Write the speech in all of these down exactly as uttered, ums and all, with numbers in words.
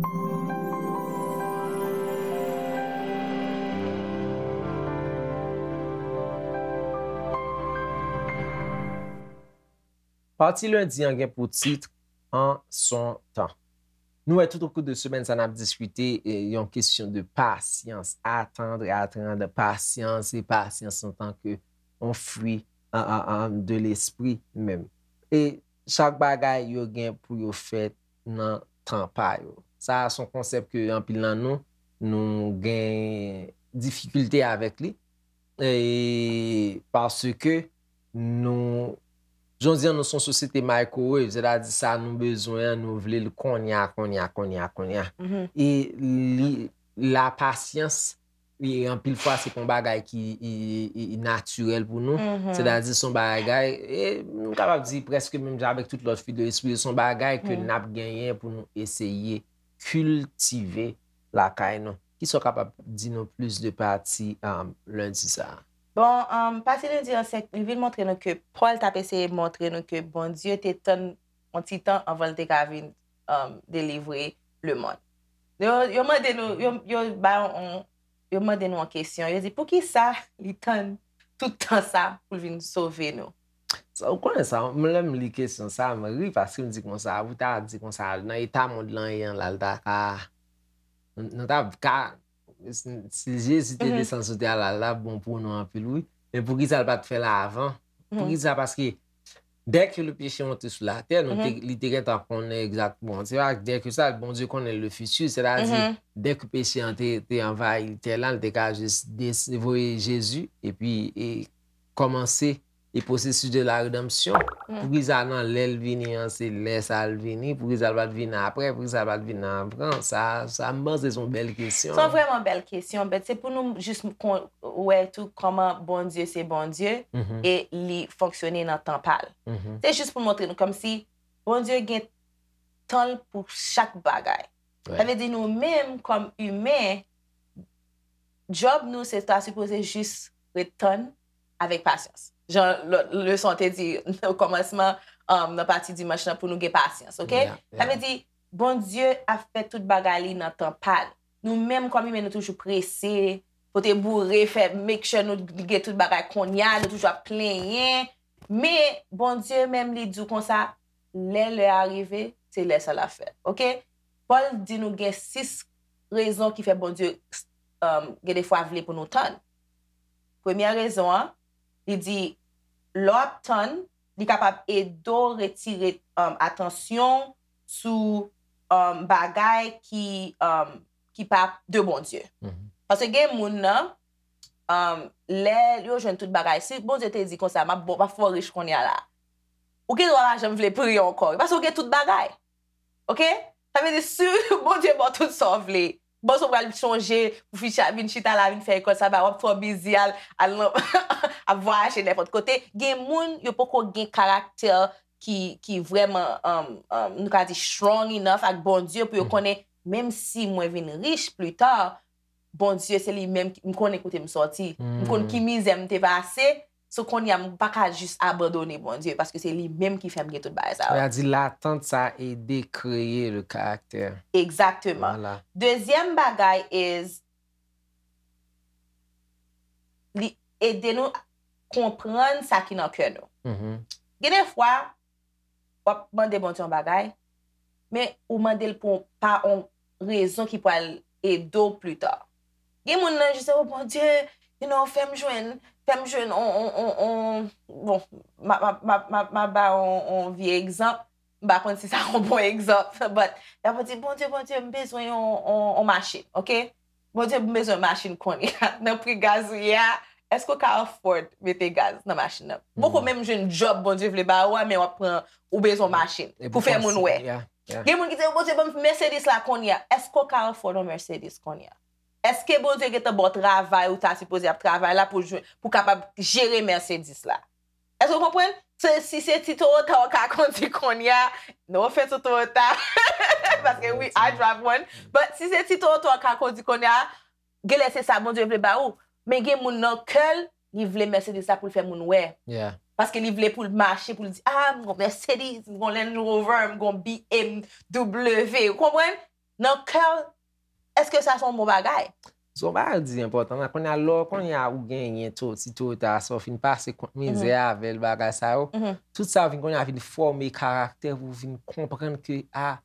Pati lendi an gen pou tit An son tan. Nou wè tout okou de semèn sa n ap diskite eh, yon kesyon de pasyans, attendre, attendre, pasyans e pasyans antanke yon fwi an, an, an, de lespri menm. E chak bagay yo gen pou yo fèt nan tan pa yo. Sa a se yon konsèp ke anpil nan nou, nou gen difikilte avèk li. E paske nou, jan di an, nou se yon sosyete microwave, sètadi sa nou bezwen an, nou vle l kounye a, kounye a, kounye a, kounye a. E li, la pasyans, e anpil fwa, se pa yon bagay ki e, e, e natirèl pou nou. Sètadi se yon bagay, e nou kapab di prèske menm jan avèk tout lòt fwi de lespri, se yon bagay ke n ap genyen pou nou eseye kiltive lakay nou. Kisa w kapab di nou plis de pati um, lendi sa a? Bon, um, pati lendi an, se, li vin montre nou ke Pòl t ap eseye montre nou ke Bondye te tann yon ti tan anvan l te ka vin um, delivre lemonn. Yo, yo mande nou, yo, yo ba yon, yo mande nou yon kesyon. Yo di, poukisa li tann tout tan sa pou l vin sove nou? Sa, ou konnen sa, mwen lè m li kesyon sa, m ri paske m di konsa, ou ta di konsa, nan eta mond lan ye an la, l ta ka, nou ta ka, si Jezi te desann sou tè a la, l ta bon pou nou anpil, wi. Men poukisa l pa t fè l avan? Poukisa? Paske dès que le péché monte sur la terre, nou te, li te gentan konnen egzakteman. Se pa dès que sa, Bondye konnen le futur, sètadi, dès que peche an te, te anvayi tè la, l te ka jis voye Jezi, epi e, kòmanse e pwosesis de la redanmsyon. Poukisa nan lè l vini an, se lè sa l vini, poukisa l pa t vin apre, poukisa l pa t vin avan, sa, sa m panse se yon bèl kesyon. Se yon vrèman bèl kesyon, but se pou nou jis wè tou kòman Bondye se Bondye e li fonksyone nan tan pa l. Se jis pou montre nou kòmsi Bondye gen tan l pou chak bagay. Sa vle di nou menm kòm imen, djòb nou se ta sipoze jis ret tann avèk pasyans. Jan leson te di nan kòmansman um, nan pati dimanch lan pou nou gen pasyans, oke? Sa vle di Bondye ap fè tout bagay li nan tan pa l. Nou menm kòm imen nou toujou prese, pote boure, fè make sure nou gen tout bagay kounye a, nou toujou ap plenyen. Men Bondye menm li di w konsa, lè lè a rive, se lè sa l ap fèt. Oke? Pòl di nou gen sis rezon ki fè Bondye um, gen defwa vle pou nou tann. Premyè rezon an, li di lè w ap tann, li kapab ede w retire um, atansyon sou um, bagay ki, um, ki pa de Bondye. Paske gen moun nan, um, lè yo jwenn tout bagay, si Bondye te di konsa, m ap fè w rich kounye a la, ou gen dwa pa janm vle priye ankò, paske ou gen tout bagay. Oke? Sa vle di si Bondye ba w tout sa w vle, bòs ou pral chonje pou fi vin chita la, vin fè lekòl saba, w ap twò bizi al, al nan, ap vwayaje nenpòt kote. Gen moun, yo poko gen karaktè ki, ki vrèman, um, um, nou ka di, strong enough ak Bondye pou yo konnen, menm si mwen vin rich pita, Bondye se li menm, m konnen kote m sòti. M konn ki mizè m te pase, So kounye a m pa ka jis abandone Bondye paske se li menm ki fè m gen tout bagay sa yo. Sa di latant sa ede kreye le karaktè. Egzakteman. Dezyèm bagay is li ede nou konprann sa ki nan kè nou. Gen de fwa w ap mande Bondye yon bagay, men ou mande l pou pa yon rezon ki pral ede w pita. Gen moun nan jis o Bondye, you know, fè m jwenn, fè m jwenn on, on, on, on, bon, m ap, m ap, m ap, m ap, m ap ba on, on vye egzanp, m pa konn si sa yon bon egzanp, but y ap di Bondye, Bondye, m bezwen yon, on, on machin, oke? Bondye, m bezwen machin kounye a. Nan pri gaz ou ye a, èske w ka afford mete gaz nan machin nan? Poko menm jwenn djòb Bondye vle ba ou a, men w ap pran, ou bezwen machin pou fè moun wè. Gen moun ki di, Bondye, ban m Mercedes la kounye a. Èske w ka afford yon Mercedes kounye a? Èske Bondye gentan ba w travay ou ta sipoze ap travay la pou, pou kapab jere Mercedes la? Èske w konprann? Se, si se ti Toyota w ka kondi kounye a, no offense to Toyota, paske wi, I drive one, but si se ti Toyota w ka kondi kounye a, genlè se sa Bondye vle ba ou. Men gen moun nan kè l, li vle Mercedes la pou l fè moun wè. Paske li vle pou l mache, pou l di, ah, m gon Mercedes, m gon Range Rover, m gon B M W. Ou konprann? nan kè w, èske sa se yon bon bagay? Zon bagay di enpòtan la. Kounye a lè kounye a ou genyen to ti Toyota sa ou fin pase kont mizè avè l bagay sa yo. Tout sa vin kounye a vin fòme karaktè pou vin konprann ke a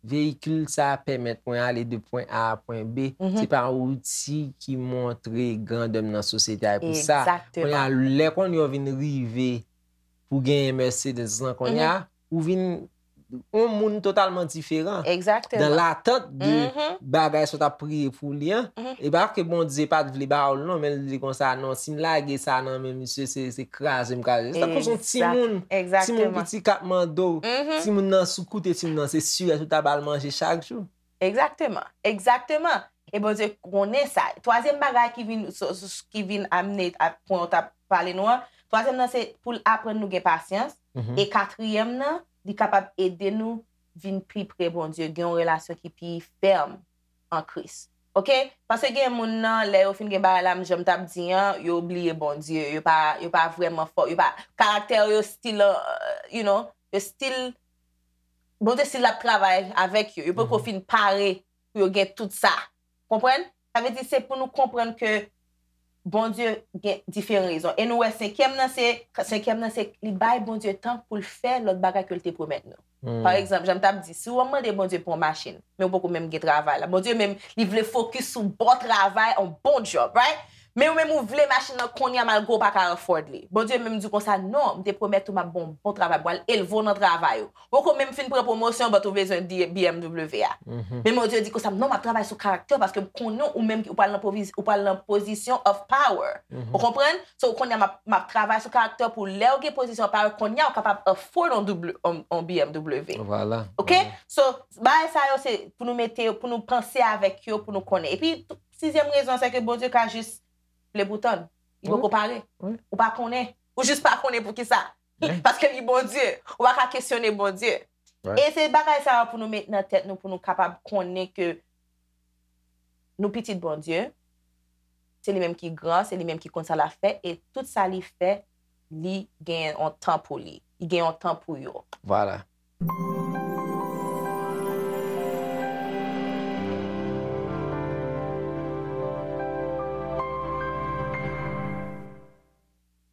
veyikil sa pèmèt mwen ale de pwen A a pwen B. Se pa yon outi ki montre grandè m nan sosyete a pou sa. Kounye a lè kounye a vin rive pou genyen Mercedes lan kounye a ou vin yon moun totalman diferan. Egzakteman. Nan latant de bagay sa w t ap priye pou li an, e pa ke Bondye pa t vle ba w l non, men l di konsa non, si m lage sa nan men misye, se, se kraze m kraze. Se tankou se yon timoun, timoun piti k ap mande w, timoun nan sou koute, timoun nan se sirèt ou ta ba l manje chak jou. Egzakteman, egzakteman. E Bondye konnen sa. Twazyèm bagay ki vin, ki vin amne a pwen w t ap pale nou an, twazyèm nan se pou l aprann nou gen pasyans. E katriyèm nan, li kapab ede nou vin pi pre Bondye, gen yon relasyon ki pi fèm an Kris. Oke? Paske gen moun nan, lè yo fin gen bagay la, m jan m t ap di an, yo bliye Bondye, yo pa, yo pa vrèman fò, yo pa, karaktè yo still, uh, you know, yo still, Bondye still ap travay avèk yo, yo poko fin pare pou yo gen tout sa. Konprann? Sa vle di se pou nou konprann ke Bondye gen diferan rezon. E nou wè senkyèm nan se, senkyèm nan se li bay Bondye tan pou l fè lòt bagay ke l te pwomèt nou. Pa egzanp, jan m t ap di, si w ap mande Bondye pou yon machin, men ou poko menm gen travay la. Bondye menm, li vle fokis sou bon travay, yon bon job, right? Men ou menm ou vle machin nan kounye a malgre w pa ka afford li. Bondye menm di w konsa, non, m te pwomèt ou m ap ba w yon bon travay, m pral elve w nan travay ou. Ou poko menm fin pran pwomosyon, but ou bezwen di B M W a. Men Bondye di konsa, non, m ap travay sou karaktè w paske m konnen ou menm ou pral nan pozisyon of power. Ou konprann? So, kounye a m ap, m ap travay sou karaktè w pou lè w gen pozisyon of power, kounye a ou kapab afford yon, on, on B M W. Vwala. Oke? So, bagay sa yo se pou nou mete yo, pou nou panse avèk yo, pou nou konnen. Epi, sizyèm rezon, se ke Bondye ka jis vle pou tann. Li poko pare. Ou pa konnen. Ou jis pa konnen pou ki sa. Paske li Bondye. Ou pa ka kesyone Bondye. E se bagay sa yo pou nou met nan tèt nou, pou nou kapab konnen ke nou pitit Bondye. Se li menm ki gran, se li menm ki konn sa l ap fè, e tout sa li fè, li gen yon tan pou li. Li gen yon tan pou yo. Vwala.